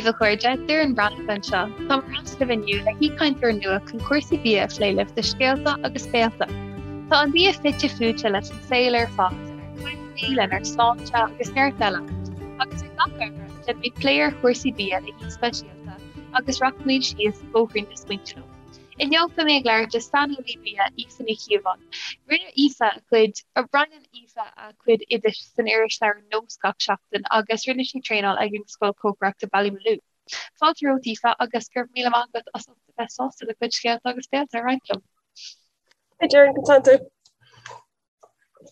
daoibh a chairde, Doireann Breathnach anseo. Táim ar ais libh inniu le haoichainteoir nua chun cúrsaí bia a phlé libh do scéalta agus béalta. Tá an bia fite fuaite leis an saol ar fad, lenár gcuimhní, lenár sláinte agus neart eile. Agus ar gach Aibreán, déanfaimid plé ar chúrsaí bia le haoi speisialta agus rachaimid síos bóithrín na smaointe leo. Inniu beidh mé ag labhairt le saineolaí bia Aoife Ní Chíobháin. Rinne Aoife a cuid, roinneann Aoife a cuid oidis san irisleabhar Nós gach seachtain agus rinne sí traenáil ag an Scoil Cócaireachta Ballymaloe. Fáilte romhat Aoife agus go raibh míle maith agat as ucht a bheith sásta do chuid scéalta agus béalta a roinnt liom. Hi Doireann, conas tánn tú?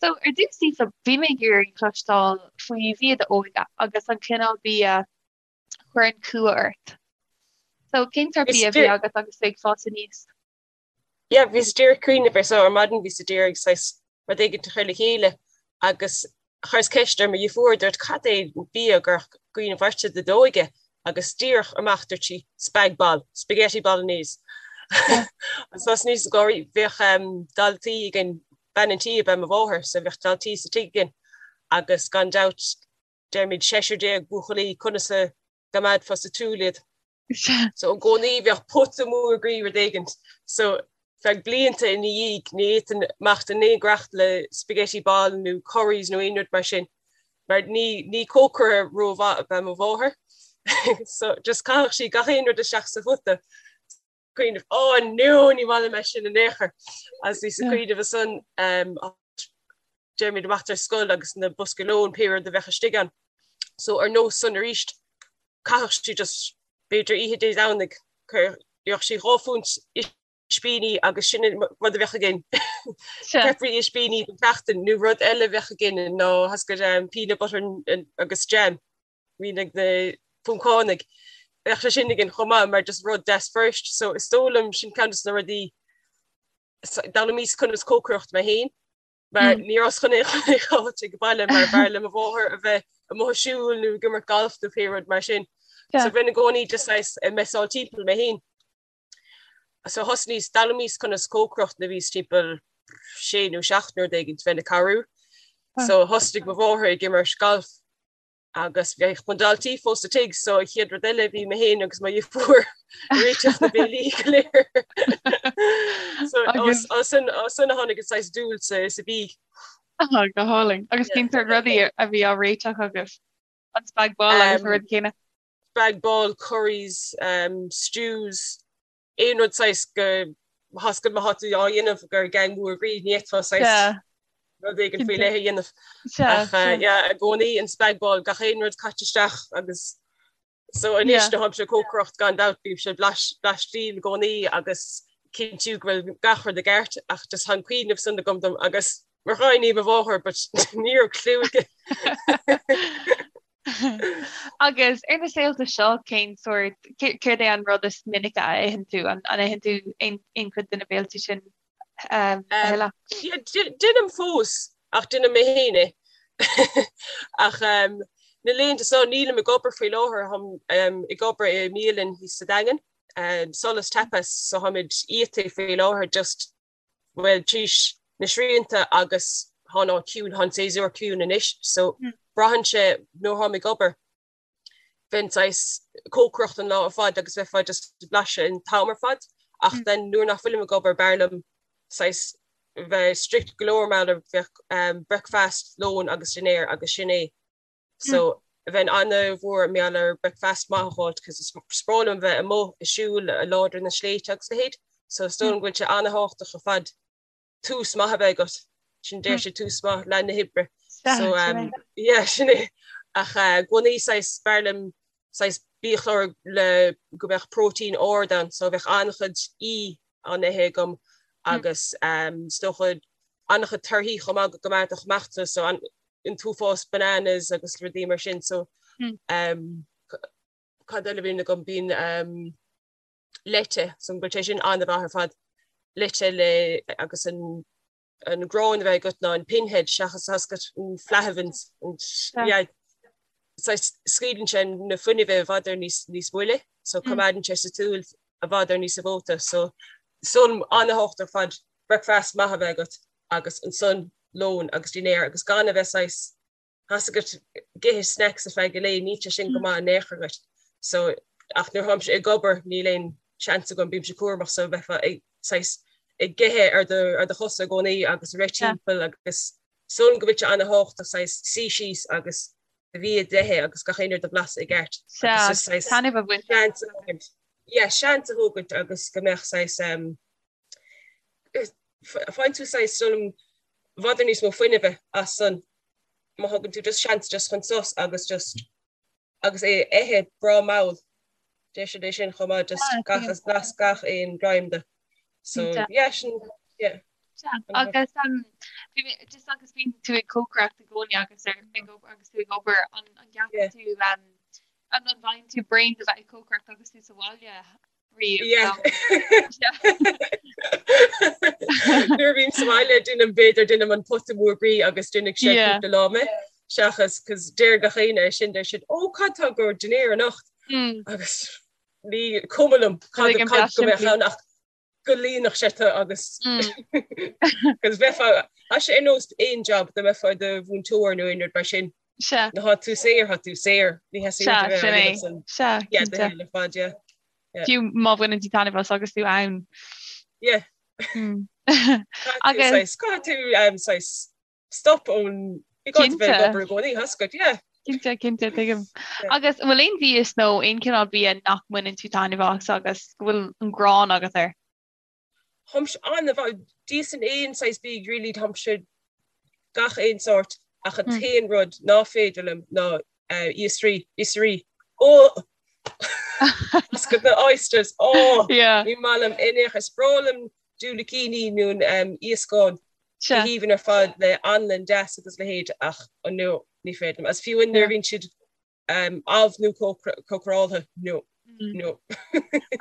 So ar dtús Aoife, bhí mé ag iarraidh cloisteáil faoi bhia d'óige agus an cineál bia chuireann cumha ort. So cén sórt bia a bhí agat agus tú ag fás aníos? Yeah, bhíos díreach ag cuimhneamh air so ar maidin bhíos ag iarraidh saghas rud éigin a chur le chéile agus chuireas ceist ar mo dheirfiúr, dúirt cad é an bia a gcuirfeadh cuimhneamh ort de d'óige agus díreach amach dúirt sí spag bol, spaghetti bolognese. Agus thosnaíos ag gáirí, bheadh daltaí againn, bean an tí ab ea mo mháthair so bheadh daltaí sa tigh againn agus gan dabht deirimid 16 buachaillí, conas a gcoimeádfá sa tsiúl iad? So i gcónaí bheadh pota mór groí rud éigint. So feadh blianta ina dhiaidh ní fhéadfainn imeacht in aon ghiorracht le spaghetti bol nó curries nó aon rud mar sin mar ní ní cócaire rómhaith ab ea mo mháthair. So just chaitheadh sí gach aon rud isteach sa phota. Cuimhneamh, oh no, ní maith liom é sin in aon chor. Agus bhíos ag cuimhneamh ansan deirimid amach ar scoil agus na boscaí lóin pé rud a bheadh istigh ann. So ar nós san arís, chaitheadh sí just b'fhéidir oíche Dé Domhnaigh, gheobhadh sí 2 phunt ispíní agus sin an rud a bheadh againn. Peppery ispíní don tseachtain nó rud eile a bheadh againn ná tá a fhios agat peanut butter agus jam. Bhíonn ag na Poncánaigh. Bheadh sé sin againn chomh maith mar just rud deas fuirist. So is dóigh liom sin ceann de na rudaí d'fhoghlaimíos conas cócaireacht mé féin mar ní rabhas chun aon chun aon áit ag baile mar b'fhearr le mo mháthair a bheith amuigh ag siúl nó ag imirt galf nó pé rud mar sin. So bheinn i gcónaí just saghas ag messáil timpeall mé féin. So thosnaíos, d'fhoghlaimíos conas cócaireacht nuair a bhíos timpeall sé nó seacht nó rud éigin, bheinn ag cabhrú. So thosnaigh mo mháthair ag imirt galf agus bheadh na daltaí fós sa tigh so an chéad rud eile bhí mé féin agus mo dheirfiúr ag réiteach na béilí go léir. So as sin a tháinig an saghas dúil sa sa bhia. Ah, go hálainn. Agus cén sórt rudaí a bhí á réiteach agaibh? An spag bol agus na rudaí céanna? Spag bol, curries, um, stews, aon rud saghas go tá a fhios agat má tá tú á dhéanamh do gang mór groí ní fhéadfá saghas rud éigin faoi leith a dhéanamh. Ach yeah, i gcónaí an spag bol gach aon rud caite isteach agus so anois nuair atáimse ag cócaireacht gan dabht bímse ag blaistíl i gcónaí agus cinntiú go bhfuil gach rud i gceart ach just tá an cuimhneamh san agam dom agus mar gháiní mo mháthair but ní raibh clue aici. Agus ar na saolta seo cén sórt, céard é an rud is minice a itheann tú? An itheann tú aon chuid de na béiltí sin a thuilleadh? Déanaim fós ach déanaim mé féin é. Ach na laethanta seo nílim ag obair faoi láthair, táim ag obair i mbialann thíos sa Daingean, Solas Tapas, so táimid iata faoi láthair just bhuel, tríd na srianta agus tá an áit ciúin, tá an séasúr ciúin anois, so braitheann sé nuair atáim ag obair, bheinn saghas cócaireacht an lá ar fad agus bheifeá just ag blaiseadh an t-am ar fad, ach then nuair nach bhfuilim ag obair b'fhearr liom saghas bheith strict go leor mar bheadh breakfast, lón agus dinnéar agus sin é. So bheinn ana-mhór mar gheall ar breakfast maith a fháilt cos is breá liom bheith amuigh ag siúl láidir na sléibhte agus a leithéid. So is dóigh liom go bhfuil sé ana-thábhachtach ar fad tús maith a bheith agat. Sin deir siad tús maith leath na hoibre. So um, yeah, sin é. Ach uh, i gcónaí saghas b'fhearr liom saghas biachlár le go mbeadh próitéin ard ann, so bheadh an-chuid E á n-ithe agam agus um, is dócha an-chuid torthaí chomh maith go gcoimeádfadh amach tú, so an, an t-uafás bananas agus rudaí mar sin so um, cad eile a bhíonn agam bíonn um, leite so go bhfuil sé sin an-mhaith ar fad leite le agus an an grán a bheith agat ná an pinhead seachas tá a fhios agat an Flahavan's yeah, scaoileann sé na fuinnimh i bhfad ar níos níos moille so coimeádann sé sa tsiúl i bhfad ar níos mó so san an-thábhachtach ar fad breakfast maith a bheith agat agus ansan lón agus dinnéar agus gan a bheith saghas, tá a fhios agat ag ithe snacks ar feadh an lae, níl sé sin go maith in aon chor dhuit. So ach nuair tháimse ag obair níl aon seans agam, bímse cúramach so bheifeá ag saghas ag ithe ar do ar do chosa i gcónaí agus ag rith timpeall agus is dóigh liom go bhfuil sé ana-thábhachtach saghas suí síos agus do bhia d'ithe agus gach aon rud a bhlaiseadh i gceart. Sea, agus just saghas taitneamh a bhaint. seans a thógaint. Yeah, seans a thógaint agus go mbeadh saghas um, faigheann tú saghas is dóigh liom i bhfad níos mó fuinnimh as san má thugann tú just seans just chun sos agus just agus é a ithe breá mall. Deir siad é sin chomh maith just gach as blas gach aon greim de. So yeah sin yeah. Agus um, bhí mé just agus bíonn tú ag cócaireacht i gcónaí agus ar ag obair agus tú ag obair an an gceapann tú um, an an bhfaigheann tú braon de bheith ag cócaireacht agus tú sa bhaile riamh? Yeah. Nuair a bhím sa bhaile déanaim b'fhéidir déanaim an pota mór groí agus déanfaidh sé cúpla lá mé seachas cos deir gach éinne é sin deir siad ó cad tá go dinnéar anocht agus ní cuma liom cad cad go mbeadh ann ach go líonfadh sé tú agus cos bheifeá tá sé ar nós aon job dá mbeifeá i do mhúinteoir nó aon rud mar sin. Sea. Nuair atá tú saor, tá tú saor. Ní theastaíonn uait a bheith á dhéanamh san. Sea, Yeah, do shaol ar fad, yeah. Yeah. Fiú má bhaineann tú taitneamh as agus tú ann. Yeah. Agus. Saghas, caithfidh tú um, saghas stop ón ní gá duit bheith ag obair i gcónaí, tá a fhios agat, yeah. Cinnte, cinnte, tuigim. Agus an bhfuil aon mhias nó aon chineál bia nach mbaineann tú taitneamh as agus go bhfuil an ghráin agat air? Táimse an-mhaith, d'íosfainn aon saghas bídh really, táimse gach aon sórt ach an t-aon rud ná féidir liom ná iasraí, oisrí, oh! Is go na oysters, oh! Ní maith liom in aon chor, is breá liom diúilicíní nó iascán go haoibhinn ar fad le anlann deas agus leithéid ach no, ní féidir liom. Agus fiú nuair a bhíonn siad amh nó cócaráltha, no, no.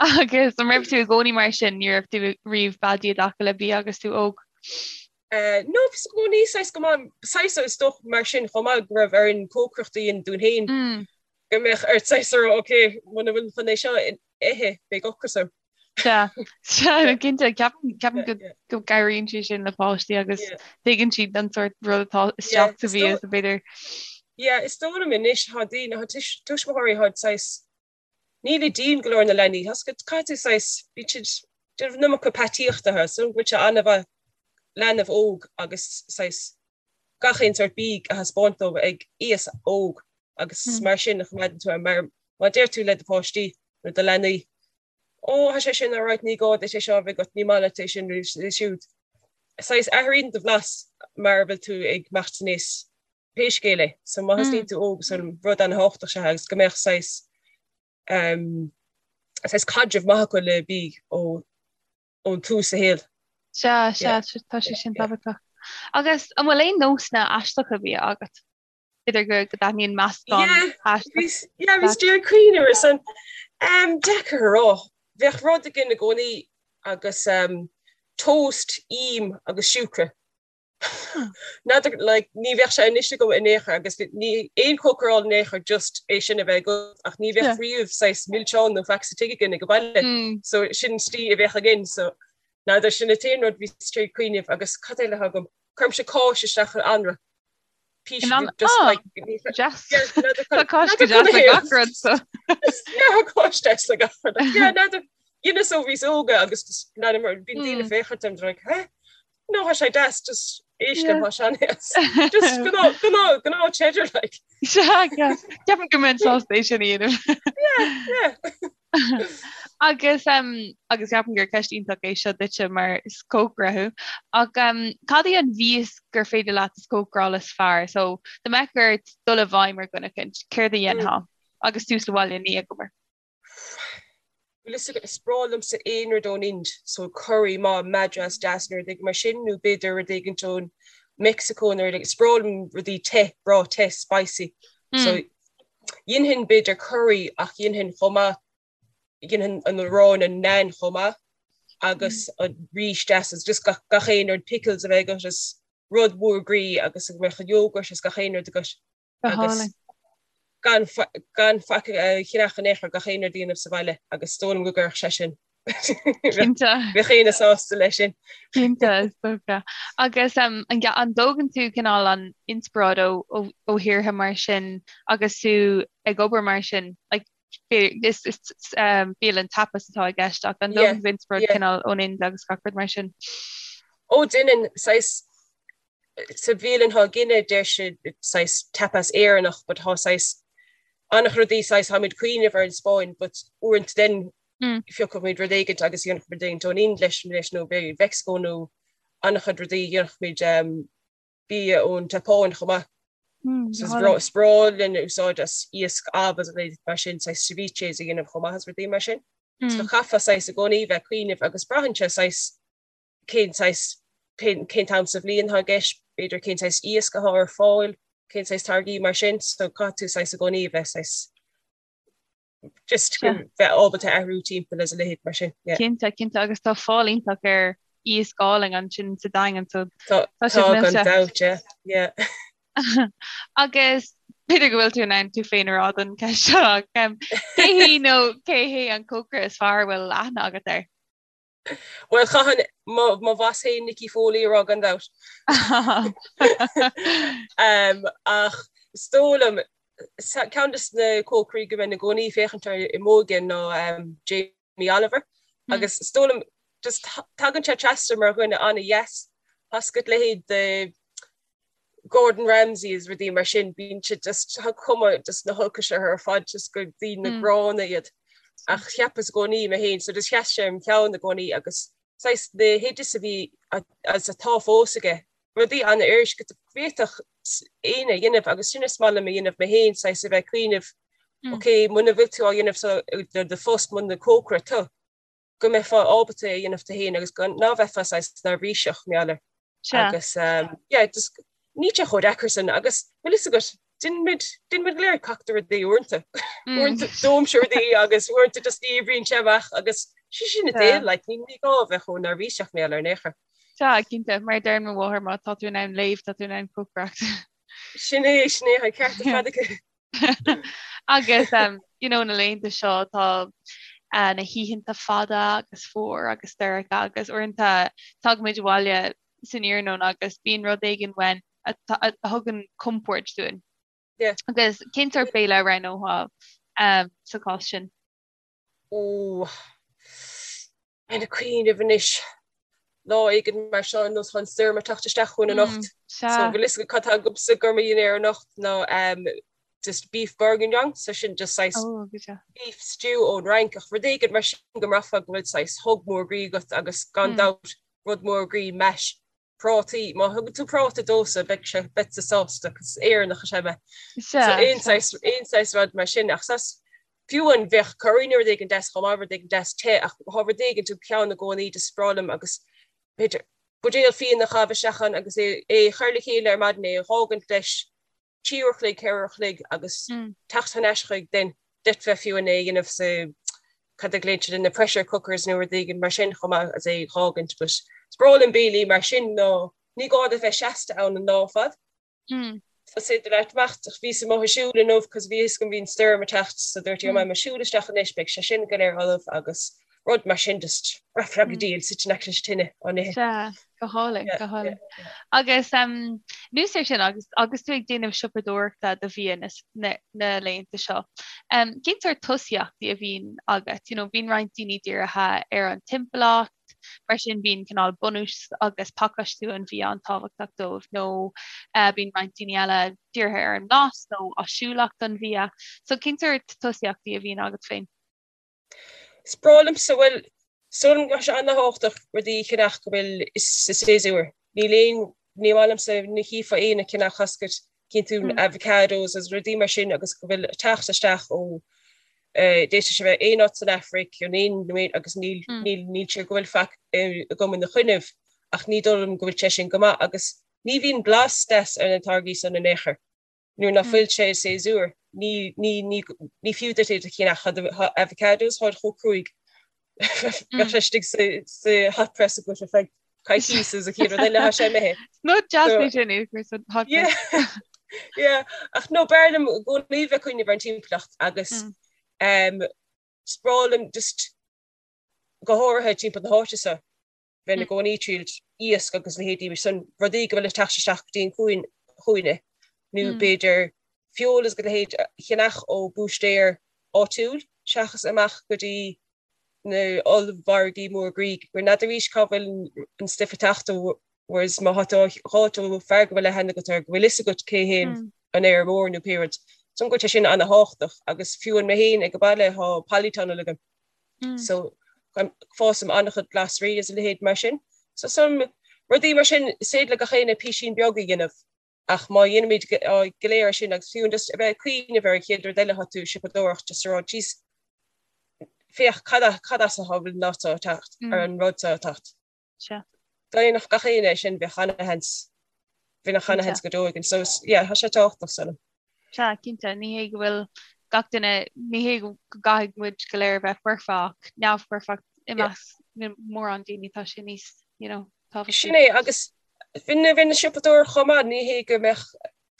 Agus an raibh tú i gcónaí mar sin, ní raibh tú riamh beadaí i dtaca le bia agus tú óg? No, bhíos i gcónaí saghas go maith, saghas is dócha mar sin chomh maith go raibh orainn cócaireacht a dhéanamh dúinn féin, go mbeadh ort saghas a rá, ok, muna bhfuil chun é seo a ithe, beidh ocras orm. Sea, sea, cinnte, ceapaim, ceapaim go, go gcabhraíonn sé sin le páistí agus tuigeann siad an sórt rud atá isteach sa bhia so b'fhéidir. Yeah, is dóigh liom anois, tá daoine, tá tuismitheoirí, tá saghas, níl dian go leor ar na leanaí, tá caithfidh tú saghas, bíonn siad, déanamh an iomarca peataíochta, so go bhfuil sé an-mhaith leanbh óg agus saghas gach aon sórt bídh a thaispeáint dóibh ag aois óg agus mar sin a choimeádann tú mar má deir tú le do pháistí nó do leanaí Ó, tá sé sin alright, ní gá duit é seo a bheith agat, ní maith leat é sin nó é siúd. Saghas athraíonn do bhlas mar a bhfuil tú ag imeacht in aois pé scéal é. So má thosnaíonn tú óg, so rud an-thábhachtach is ea agus go mbeadh saghas um, saghas caidreamh maith acu le bídh ó ón tús sa shaol. Sea, sea, tá sé sin tábhachtach. Agus an bhfuil aon nósanna aisteacha bia agat? B'fhéidir go go dtaitníonn meascán aisteach. Yeah, bhíos ag cuimhneamh ar san. Um, deacair a rá. Bheadh rud againn i gcónaí agus um, toast, im agus siúcra. N'fheadar, like, ní bheadh sé anois agam in aon chor agus ní aon chócaráil in aon chor just é sin a bheith agat ach ní bheadh riamh saghas milseán nó faic sa tigh againn ag an baile. So sin slí a bheadh againn so n'fheadar sin an t-aon rud bhíos ag cuimhneamh agus cad eile atá agam? Cuirimse cáis isteach in anraith. Píosa In an- just ah, like Deas. Yeah, n'fheadar Tá cáis go deas le gach rud so. Yeah, cáis deas le gach rud. Yeah, n'fheadar dheineas ó bhíos óga agus just n'fheadar mar bíonn daoine ag féachaint orm they're like, huh? No, tá sé deas, just éist liom, tá sé an-deas. Just gnáth, gnáth, gnáth cheddar like. Sea, ceapaim go mbeinn sásta é sin a dhéanamh. Yeah, yeah. Agus um, agus ceapaim gur ceist iontach é seo duitse mar is cócaire thú. Ach um, cad é an mhias gur féidir leat is cócaráil is fearr? So dá mbeadh ort dul i bhfeidhm ar dhuine eicínt, céard a dhéanfá? Agus tú sa bhaile ní ag obair. Bhfuil fhios agat, is breá liomsa aon rud ón Ind, so curry maith madras deas nó rud éigin mar sin, nó b'fhéidir rud éigin ón Meicsiceo nó rud éigin, is breá liom rudaí te, breá te, spicy. So dhéanfainn b'fhéidir curry ach dhéanfainn chomh maith, dhéanfainn an arán an naan chomh maith agus an rís deas is just gach, gach aon rud pickles a bheith agat is rud mór groí agus go mbeadh an yogurt is gach aon rud agat. agus gan gan faic a cheannach in aon chor gach aon rud a dhéanamh sa bhaile agus is dóigh liom go gcuirfeadh sé sin Cinnte. Bheadh éinne sásta leis sin. Cinnte, is dócha. Agus um, an an dtógann tú cineál an inspioráid ó ó ó thíortha mar sin agus tú ag obair mar sin? Like, is bialann tapas atá i gceist ach an dtógann tú inspioráid cineál ón Ind agus gach rud mar sin? Ó déanann, saghas sa bhialann atá againne deir siad saghas tapas Éireannach but tá saghas an-chuid rudaí saghas táimid cuimhneamh ar an Spáinn but uaireanta then phiocfaimid rud éigint agus dhéanfaimid rud éigint ón Ind leis leis nó b'fhéidir Mheicsiceo nó an-chuid rudaí dhéanfaimid bia ón tSeapáin chomh maith. So is breá linn úsáid as iasc amh agus rudaí mar sin, saghas ceviches a dhéanamh chomh maith is rudaí mar sin. So chaithfeá saghas i gcónaí bheith ag cuimhneamh agus braitheann sé saghas cén saghas, cén t-am sa bhliain atá i gceist, b'fhéidir cén saghas iasc atá ar fáil, cén saghas táirgí mar sin, so caithfidh tú saghas i gcónaí a bheith saghas just bheith ábalta athrú timpeall is a leithéid mar sin. Yeah. Cinnte, cinnte, agus tá fáil iontach ar iasc álainn ansin sa Daingean, so tá sibh millte. Tá gan dabht, yeah, yeah. Agus b'fhéidir go bhfuil tú in ann tú féin a rá don cheist seo, ach cé hí nó cé hé an cócaire is fearr a bhfuil aithne agat air? Bhuel, chaithfinn mo bhoss féin Nicky Foley a rá gan dabht. Ach is dóigh liom, ceann de na cócairí go mbeinn i gcónaí ag féachaint air i m'óige ná Jamie Oliver. Agus is dóigh liom, just tagann sé trasna mar dhuine an-dheas. Tá a fhios agat leithéid de Gordon Ramsay is rudaí mar sin, bíonn siad just, tá cuma just na holcais orthu ar fad, just gur daoine mm. gránna iad. Ach cheapas i gcónaí mé féin, so just sheas sé im cheann i gcónaí agus saghas na hoidis a bhí agus atá fós aige, rudaí an-fhuirist go bhféadfadh éinne a dhéanamh agus sin is maith liom a dhéanamh mé féin, saghas a bheith ag cuimhneamh, mm. ok, muna bhfuil tú á dhéanamh so do phost muna cócaire tú. go mbeifeá ábalta é a dhéanamh tú féin agus gan ná bheifeá saghas neirbhíseach mar gheall air. Agus yeah, just níl sé chomh deacair sin agus bhfuil fhios agat, déanaimid déanaimid go léir cac de rudaí uaireanta. Uaireanta dóimse rudaí agus uaireanta just ní oibríonn sé amach agus sé sin an saol, like, ní ní gá a bheith chomh neirbhíseach mar gheall air in aon chor. Sea, cinnte, mar a deireann mo mháthair, má tá tú in ann léamh, tá tú in ann cócaireacht. Sin é, sin é, tá an ceart ar fad aici. Agus you know na laethanta seo tá uh, na hoícheanta fada agus fuar agus dorcha agus uaireanta tagaimid abhaile san iarnóin agus bíonn rud éigin uainn a, a, a thugann compord dúinn. Yeah. Agus cén sórt béile a roghnófá um, sa chás sin? Ó, ag cuimhneamh anois lá éigin mar seo ar nós tá an stoirm ag teacht isteach chugainn anocht. So bhfuil fhios agat cad tá agamsa do mo dhinnéar anocht ná um, just beef bourguignon, so sin just saghas oh, beef stew ón Fhrainc ach rud éigin mar sin go mbraithfeá go bhfuil saghas hug mór groí agat agus gan mm. dabht rud mór groí mash prátaí, má thugann tú práta domhsa beidh sé, beadsa sásta, 'cause Éireannach is ea mé. So aon saghas, aon saghas rud mar sin ach saghas, fiú amháin bheadh curry nó rud éigin deas chomh maith, rud éigin deas te ach tá rud éigin im cheann i gcónaí just breá liom agus b'fhéidir buidéal fíona a chaitheamh isteach ann agus é a chur le chéile ar maidin, é a dh'fhágaint leis 3 uair a chloig, 4 uair a chloig agus teacht thar n-ais chuig then d'fhéadfá fiú amháin é a dhéanamh sa cad a ghlaonn siad na pressure cookers nó rud éigin mar sin chomh maith agus é a dh'fhágaint but is breá liom béilí mar sin ná ní gá duit bheith seasta ann an lá ar fad. So is féidir leat imeacht ach bhíos amuigh ag siúl inniu cos bhí fhios agam bhí an stoirm ag teacht so dúirt mé ag siúl isteach anois beidh sé sin go léir ullamh agus rud mar sin just braithfeá go diail suite in aice leis an tine á n-ithe. Sea, go hálainn, go hálainn. Agus anuas air sin, agus agus tú ag déanamh siopadóireachta do bhia na na na laethanta seo, cén sórt tosaíochtaí a bhíonn agat? You know, bíonn roinnt daoine dírithe ar an timpeallacht, mar sin bíonn cineál bunús agus pacáistiú an bhia an-tábhachtach dóibh, nó bíonn roinnt daoine eile dírithe ar an mblas nó áisiúlacht an bhia. So cén sórt tosaíochtaí a bhíonn agat féin? Is breá liomsa, bhuel, is dóigh liom go bhfuil sé an-tábhachtach rudaí a cheannach go bhfuil sa séasúr. Níl aon, ní maith liomsa ní chífeá éinne ag ceannach tá a fhios agat, cíonn tú avocados agus rudaí mar sin agus go bhfuil ag teacht isteach ó d'fhéadfadh sé bheith aon áit san Afraic nó aon nó aon agus níl, níl, níl sé go bhfuil faic agam ina choinnibh ach ní dóigh liom go bhfuil sé sin go maith agus ní bhíonn blas deas ar na táirgí san in aon chor. Nuair nach bhfuil sé i séasúr, ní, ní, ní, ní fiú duit iad a cheannach. Tá avocados, táid chomh cruaidh. Bheadh sé istigh sa, sa hot press agat ar feadh coicíos is an chéad rud eile tá sé imithe. Nod deas é sin é chur san hot press. Yeah, yeah. Ach no, b'fhearr liom i gcónaí bheith ag cuimhneamh ar an timpeallacht agus um, is breá liom just go háirithe timpeall na háite seo. bheinn i gcónaí ag triail iasc agus leithéidí mar sin, rudaí go bhfuil ag teacht isteach go dtí an cuan chugainne, nó b'fhéidir feoil agus a leithéid a cheannach ó búistéir. áitiúil seachas amach go dtí na ollmhargaí mór groí gur n'fheadar arís cá bhfuil an stuif ag teacht ó whereas má thá tú á dh'fháilt ó fear go bhfuil aithne agat air go bhfuil fhios agat cé hé an fheirmeoir nó pé rud. So go bhfuil sé sin ana-thábhachtach agus fiú an mé féin ag an baile thá polytunnel agam so fásaim an-chuid glasraí is a leithéid mar sin. So some rudaí mar sin is féidir le gach éinne písín beag a dhéanamh. Ach má dhéanaimid go léir é sin agus fiú just a bheith ag cuimhneamh ar an chéad rud eile atá tú ag siopadóireacht just a rá jeez féach cad cad as atá an rud seo ag teacht ar an rud seo ag teacht. Sea. Dá ndéanfadh gach éinne é sin bheadh ana-sheans bheadh ana-sheans go deo againn. So yeah tá sé tábhachtach is dóigh liom. Sea, cinnte, ní hé go bhfuil gach duine, ní hé go gcaithfidh muid go léir a bheith foirfe ach neamhfhoirfeacht i measc mórán daoine tá sé níos, you know, tábhachtaí. Sin é agus bheinn ag siopadóireacht chomh maith, ní hé go mbeadh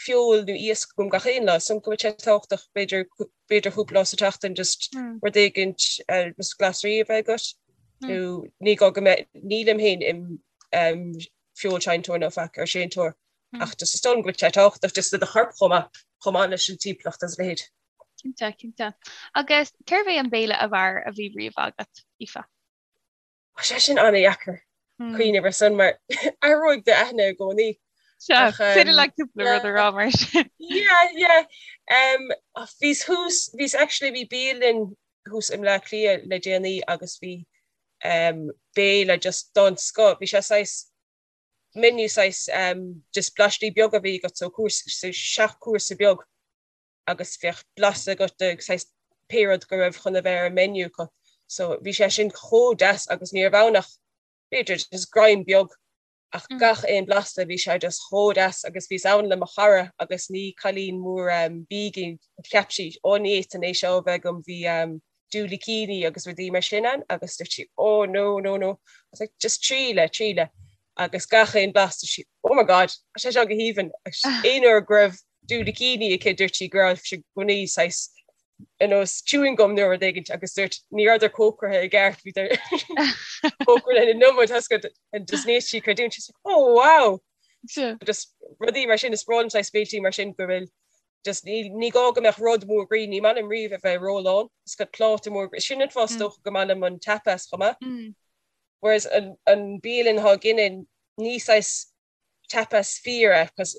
feoil nó iasc agam gach aon lá, so go bhfuil sé tábhachtach b'fhéidir b'fhéidir cúpla lá sa tseachtain just rud éigint just glasraí a bheith agat nó ní gá go mbeidh, nílim féin im feoilséantóir nó faic ar séantóir ach just is dóigh liom go bhfuil sé tábhachtach just do do chorp chomh maith, chomh maith leis an timpeallacht agus a leithéid. Cinnte, cinnte. Agus cérbh é an béile ab fhearr a bhí riamh agat, Aoife? Tá sé sin an-dheacair cuimhneamh ar son mar athróidh d'aithne i gcónaí. Sea, féidir leat cúpla rud a rá mar sin. Yeah, yeah. Um, bhíos thuas, bhíos actually bhí bialann thuas i mBleá Cliath le déanaí agus bhí um, béile just den scoth. Bhí sé saghas menu saghas um, just blaistí beaga a bhí agat so cúrsa, so seacht cúrsa beag. agus bheadh blas agat de saghas pé rud go raibh chun a bheith ar an menu acu. So bhí sé sin chomh deas agus ní raibh ann ach b'fhéidir just greim beag ach gach aon blasta bhí sé just chomh deas agus bhíos ann le mo chara agus ní cailín mór bídh í cheap sí ó ní fhéadfainn é seo a bheith agam bhí diúilicíní agus rudaí mar sin ann agus dúirt sí oh no no no I was like just triail é triail é agus gach aon blas dúirt sí oh my god tá sé seo go haoibhinn agus aon uair go raibh diúilicíní aici dúirt sí go raibh sé i gcónaí saghas ar nós chewing gum nó rud éigin agus dúirt ní rabhadar cócairithe i gceart bhíodar cócairithe an iomad and just ní sí creidiúint she's like oh wow just rudaí mar sin is breá liom saghas béiltí mar sin go bhfuil Just ní, ní gá go mbeadh rud mór groí, ní maith liom riamh a bheith rólán, is go pláta mór groí, sin an fáth is dócha go maith liom an tapas chomh maith. Whereas an, an bialann atá againne, ní saghas tapas fíor é, cos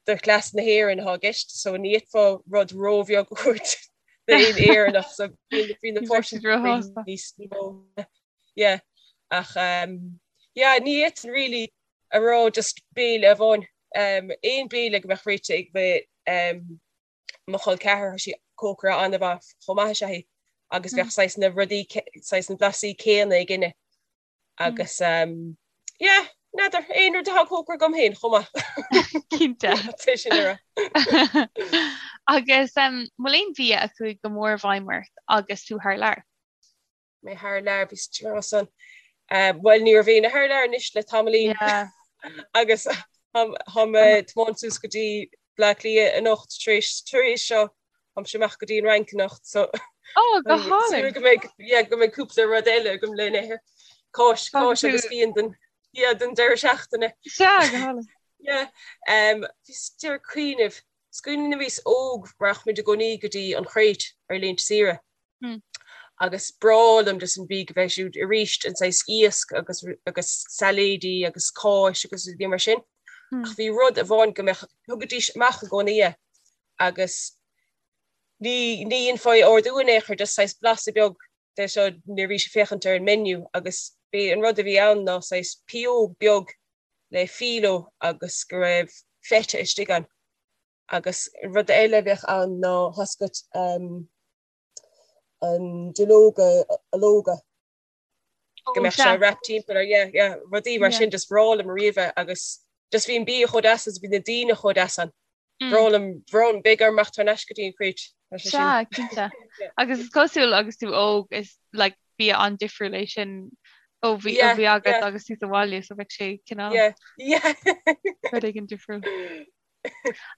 do chleas na hÉireann atá i gceist, so ní fhéadfá rud róbheag a thabhairt d'aon Éireannach, so bíonn, bíonn na portions níos mó. Yeah, ach um, yeah, ní fhéadfainn really a rá just béile amháin. Aon béile go mbeadh réite ag mo chol ceathar, tá sí cócaire an-mhaith chomh maith is ea í agus bheadh saghas na rudaí, saghas na blasaí céanna againne agus yeah, n'fheadar, aon rud atá cócaire agam féin chomh maith. Cinnte. Tá sin a rá. Agus an bhfuil aon bhia a chuaigh go mór i bhfeidhm ort agus tú thar lear? mé thar lear bhí san. Bhuel ní raibh éinne thar lear anois le tamaillín agus tá mé ag tiomáint suas go dtí Bleá Cliath anocht tar éis tar éis seo táimse amach go dtí an Fhrainc anocht so Oh go hálainn! go mbeidh yeah go mbeidh cúpla rud eile agam le n-ithe. Cáis cáis agus fíon den yeah den deireadh seachtaine. Sea go hálainn. Yeah um bhíos ag cuimhneamh is cuimhin liom nuair a bhíos óg rachadh muid i gcónaí go dtí an Chréit ar laethanta saoire. Agus breá liom just an bia go bheith siúd arís an saghas iasc agus agus sailéidí agus cáis agus rudaí mar sin. Ach bhí rud amháin go mbeadh thugaidís amach i gcónaí é agus ní ní dhéanfá é ordú in aon chor just saghas blasta beag de seo nuair a bhís ag féachaint ar an menu agus b'é an rud a bhí ann ná saghas pióg beag le filo agus go raibh feta istigh ann. Agus rud eile a bheadh ann ná tá 's agat an duilleoga ológa go mbeadh sé wrapped timpeall ar yeah yeah rudaí mar sin just bhreá liom ariamh é agus just bhí an bia chomh deas agus bhí na daoine chomh deas ann. Bhreá liom bhreá liom beidh orm imeacht thar n-ais go dtí an Chréit. Sea, cinnte. Agus is cosúil agus tú óg is like bia an-difriúil é sin ó bhí ó bhí agat agus tú sa bhaile so bheadh sé cineál rud éigin difriúil.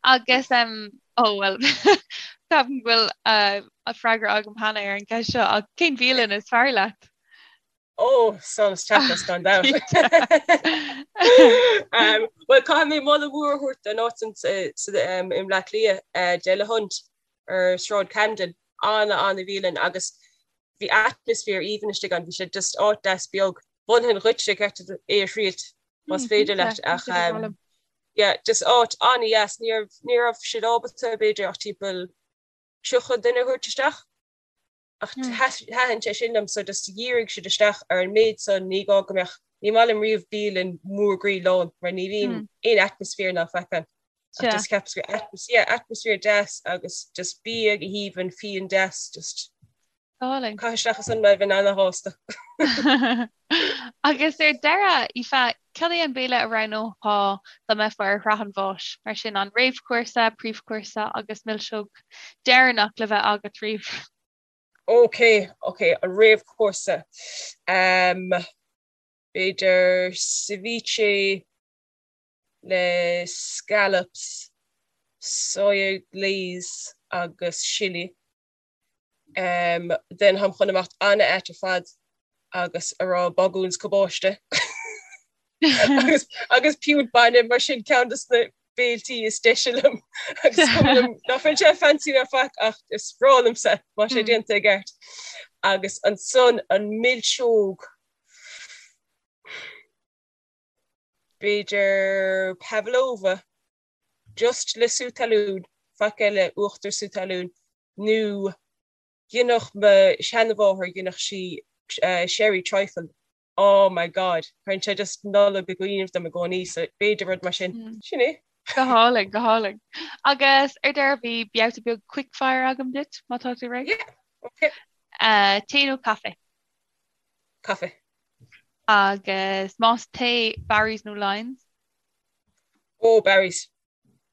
Agus ó bhuel ceapaim go bhfuil uh, freagra agam cheana ar an gceist seo ach cén bhialann is fearr leat? Ó Solas Tapas gan dabht. Um, well caithfidh mé moladh mór a thabhairt don áit i mBleá Cliath uh, Delahunt ar Sráid Camden. Ana-ana-bhialann agus bhí atmaisféar aoibhinn istigh ann, bhí sé just áit deas beag. Mholfainn dhuitse ceart é a thriailt más féidir leat ach yeah just áit an-dheas. Ní raibh ní raibh siad ábalta b'fhéidir ach timpeall 30 duine a thabhairt isteach ach thaitin sé sin liom so just dhírigh siad isteach ar an méid san ní gá go mbeadh ní maith liom riamh bialann mór groí lán mar ní bhíonn aon atmaisféar ná faic ann. Ach just cheapas gur yeah, atmaisféar deas agus just bia go haoibhinn, fíon deas, just Álainn. Caith isteach ansan mé, bheinn ana-shásta. Agus ar deireadh, Aoife, cad é an béile a roghnófá dá mbeifeá ar shraith an bháis? Mar sin, an réamhchúrsa, príomhchúrsa agus milseog deireanach le bheith agat riamh. Ok, ok, an réamhchúrsa. Um, b'fhéidir ceviche le scallops, soya glaze agus sillí. Then táim chun imeacht an-ait ar fad agus a rá bagún 's cabáiste agus agus piúnt bainne mar sin ceann de na béiltí is deise liom agus is cuma liom ná fuil sé fancy ná faic ach is breá liomsa má tá sé déanta i gceart. Agus ansan an milseog b'fhéidir pavlova just le sú talún, faic eile, uachtar sú talún, nó dheineadh mo sheanmháthair, dheineadh sí sherry trifle, oh my God, cuireann sé just Nollaig i gcuimhne dom i gcónaí, so b'fhéidir rud mar sin. Sin é. Go hálainn, go hálainn. Agus ar deireadh bhí babhta beag quickfire agam duit, má tá tú réidh. Yeah, okay. Tae nó caife? Caife. Agus más tae, Barry's nó Lyons? Ó, Barry's.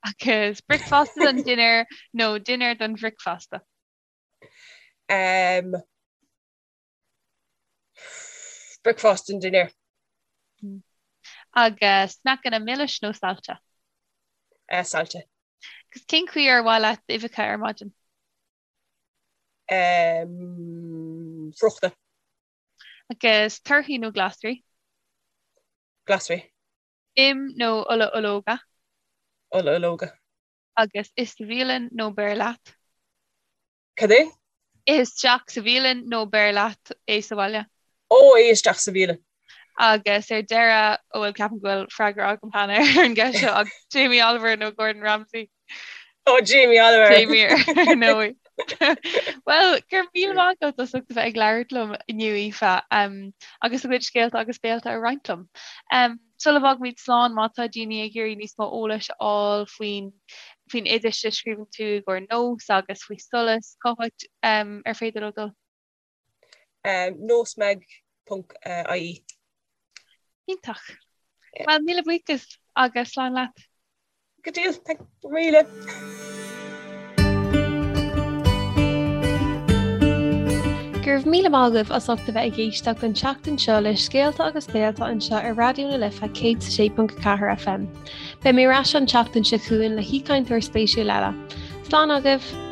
Agus bricfeasta don dinnéar nó dinnéar don bhricfeasta? Um, bricfeasta don dinnéar. Agus sneaiceanna milis nó saillte? Uh, saillte. Agus cén chaoi ar mhaith leat uibheacha ar maidin? Um, friochta. Agus torthaí nó glasraí? Glasraí. Im nó ola ológa? Ola ológa. Agus ith sa bhialann nó beir leat? Cad é? Ith isteach sa bhialann nó beir leat é sa bhaile? Ó, ith isteach sa bhialann. Agus ar deireadh, ó bhuel ceapaim go bhfuil freagra agam cheana ar an gceist seo, ach Jamie Oliver nó Gordon Ramsay? Ó, Jamie Oliver! Jamie ar ndóigh. Bhuel, go raibh míle maith agat as ucht a bheith ag labhairt liom inniu, Aoife, agus do chuid scéalta agus béalta a roinnt liom. Sula bhfágaimid slán, má tá daoine ag iarraidh níos mó eolais a fháil faoin faoin oideas a scríobhann tú i gcomhair Nós agus faoi Solas, cá háit ar féidir leo dul? Nósmag ponc ie. Iontach. Bhuel, míle buíochas agus slán leat. Go deas, thank you míle. Go raibh míle maith agaibh as ucht a bheith ag éisteacht an tseachtain seo le Scéalta agus Béalta anseo ar Raidió na Life 106.4 FM. Beidh mé ar ais an tseachtain seo chugainn le haoichainteoir spéisiúil eile. Slán agaibh!